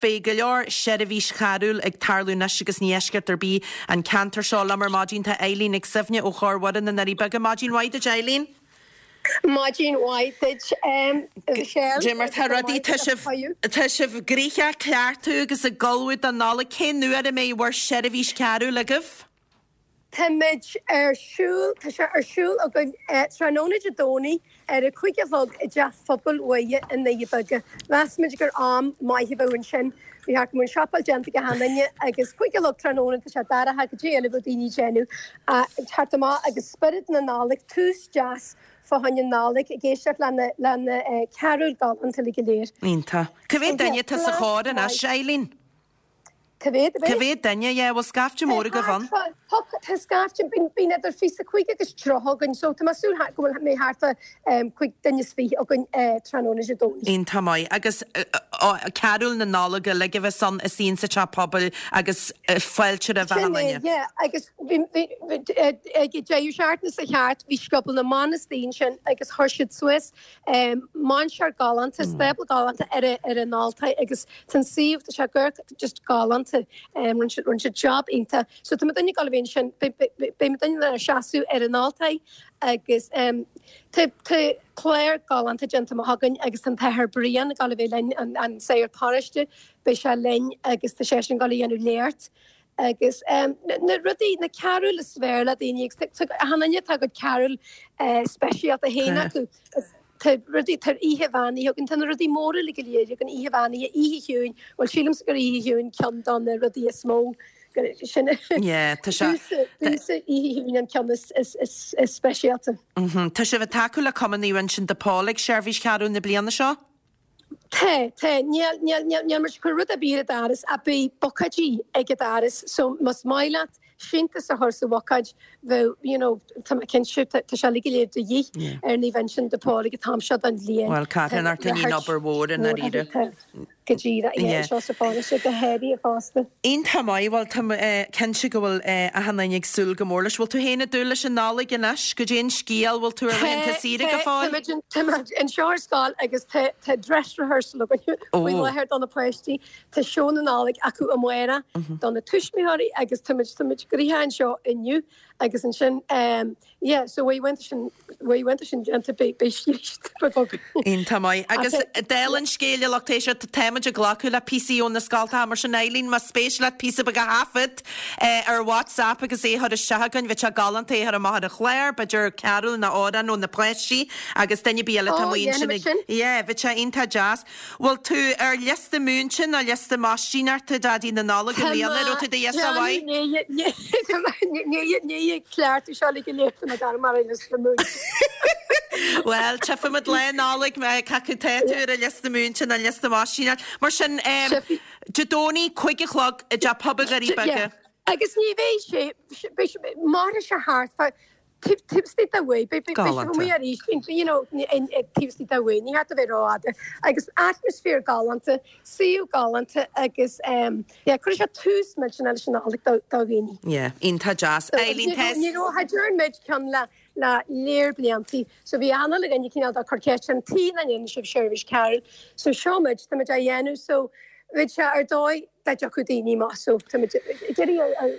Beidh go leor seirbhís charúil ag tarlú anois agus ní eisceacht ar bith an ceantar seo. Liom ar maidin tá Eileen Nic Suibhne ó Chór Mhuire na nDoirí Beaga. Maidin mhaith duit Eileen. Maidin mhaith duit Michelle. Dé mar tá rudaí, tá sibh, tá sibh gnoitheach ag cleachtadh agus ag ullmhú don Nollaig. Cén uair a mbeidh bhur seirbhís charúil agaibh? Táimid ar siúl, tá sé ar siúl againn tráthnóna Dé Domhnaigh ar a 5 a chlog i dTeach Phobail Mhuire i nDoirí Beaga. Mheas muid gur am maith a bheadh ansin. Bhí thart go mbeadh an siopail déanta ag achan duine agus 5 a chlog tráthnóna tá sé dorcha goidé eile a bheadh daoine ag déanamh teacht amach agus spiorad na Nollag, tús deas fá choinne Nollag ag éisteacht le na le na carúil galánta uilig go léir. Iontach. Cá mhéad duine atá sa chór anois, Eileen? Cá mhéad a bheidh? Cá mhéad duine, yeah, bhfuil scaifte mór agaibh ann? Tá, tá scaifte, bíonn idir 25 agus 30 againn, so tá mé ag súil go bhfuil mé thart fá 25 duine againn tráthnóna Dé Domhnaigh. Iontach maith. Agus carúil na Nollag uilig a bheas ann istigh insa teach pobail agus fáilte roimh achan Sin é, duine. yeah, agus bhí, bhí, ag an deireadh seachtaine seo thart bhí Scioból na mBan istigh ansin agus chuir siad suas Mainséar galánta, stábla galánta ar ar an altóir agus tá an suíomh, tá sé go just galánta. Rinne siad rinne siad job iontach. So tá muidinne ag dul a bheith ansin, beidh muidinne ag seasamh ar an altóir agus tá tá clár galánta déanta amach againn agus tá an tAthair Brian ag dul a bheith linn, an an sagart paróiste, beidh sé linn agus tá seisean ag dul a dhéanamh léacht. Agus na rudaí, na carúil is fearr le daoine, agus achan duine tá a gcuid carúil speisialta féin acu. Tá rudaí, tá Oíche Bheannaithe againn, tá na rudaí móra uilig go léir againn, Oíche Bheannaithe, Oíche Chiúin, bhuel sílimse gur Oíche Chiúin ceann de na rudaí is mó, sin Yeah, tá sé. Domsa Oíche Chiúin an ceann is speisialta. Tá sibh ag tacú le Cumann Naomh Uinseann de Pól ag seirbhís charúil na bliana seo? Tá, tá. Níl, níl, níl, níl muid ag cur rud ar bith ar an doras ach beidh bucáidí ag an doras so más maith leat síntiús a chur sa bhucáid bheadh, you know, tá mé cinnte, tá, tá sé uilig go léir de dhíth ar Naomh Uinseann de Pól ag an t-am seo den bhliain. Bhuel, Tá carthanacht a níonn obair mhór i ndáiríre. Tá, go díreach, yeah, anseo sa pharóiste go háirithe fosta. Iontach maith, bhuel tá mé cinnte go bhfuil achan duine ag súil go mór leis. Bhfuil tú féin ag dúil leis an Nollaig anois? Goidé an scéal, bhfuil tú ar laethanta saoire go fóill? Tá, tá muid anseo ar scoil agus tá tá dress rehearsal againn faoi láthair do na páistí. Tá seó na Nollag acu amárach do na tuismitheoirí agus tá muid tá muid gnoitheach anseo inniu agus ansin Yeah, so uaireanta sin, uaireanta sin déanta, beidh scíth beag againn. Iontach maith. Agus dála an scéil, a lucht éisteachta, táimid ag glacadh le píosaí ó na scoltacha, mar sin Eileen, más spéis leat píosa beag a thaifead ar WhatsApp agus é a chur isteach againn, bheadh sé galánta é a chur amach ar an chlár, b'fhéidir carúl nó amhrán ó na páistí agus duine ar bith eile atá amuigh ansin ag, yeah, bheadh sé iontach deas. Bhfuil tú ar liosta múinte nó liosta maistíneachta Daidí na Nollag i mbliana? Raibh tú do ghiosa mhaith? Ní cleachtadh seo le go léir tá mé gar mar ar liosta múinte. Bhuel, tchífimid Lá Nollag cé acu tá tú ar an liosta múinte nó liosta maistíneachta. Mar sin, Dé Domhnaigh, 5 a chlog i dTeach Pobail Dhoirí Beaga. Agus ní bheidh sé, mairfidh sé thart fá Taobh istigh de uair, beidh sibh amuigh arís, you know, taobh istigh de uair, ní theacht a bheith rófhada. Agus atmaisféar galánta, suíomh galánta agus yeah, cuirfidh sé tús millteanach leis an Nollaig do dhaoine. Yeah, iontach deas. Eileen, tá. Ní raibh, cha dtearn muid ceann le le léar bliantaí, so bhí achan duine cineál ag cur ceist an tuige nach ndéanann sibh seirbhís carúil, so seo muid, tá muid á dhéanamh, so bheadh sé ar dóigh dá dtiocfadh daoine amach, so tá muid ag iarraidh ar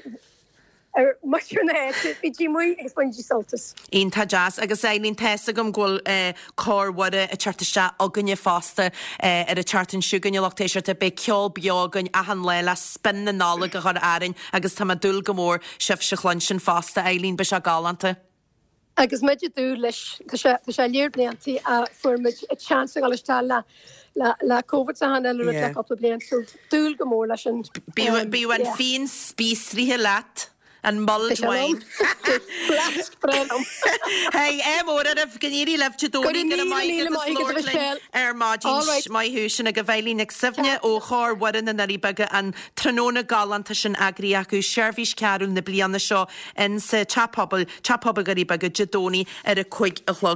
ar muintir na háite, bígí amuigh agus bainigí sult as. Iontach deas. Agus Eileen, tá fhios agam go bhfuil Cór Mhuire ag teacht isteach againne fosta ar an tseachtain seo chugainn, a lucht éisteachta. Beidh ceol beo againn achan lá le spion na Nollag a chur orainn agus tá mé ag dúil go mór sibhse a chluinstin fosta, Eileen. Beidh sé galánta. Agus muid ag dúil leis, tá sé, tá sé léar bliantaí a fuair muid chance a dhul isteach le, le, le Covid is achan uile rud le cúpla bliain, so dúil go mór leis an, Bíodh, bíodh an yeah. fíon spíosraithe leat, an mulled Tá sé wine. liom. Flask breá liom. Hey, ádh mór oraibh, go n-éirí libh Dé Go Domhnaigh, raibh go raibh míle, maith míle agat as maith agat, labhairt linn Michelle. ar maidin. All right. Maith thú, sin agaibh Eileen Nic Suibhne ó Chór Mhuire na nDoirí Beaga, an tráthnóna galánta sin eagraithe acu, seirbhís carúil na bliana seo in sa Teach Pobail, Teach Pobail Dhoirí Beaga, Dé Domhnaigh ar a 5 a chlog.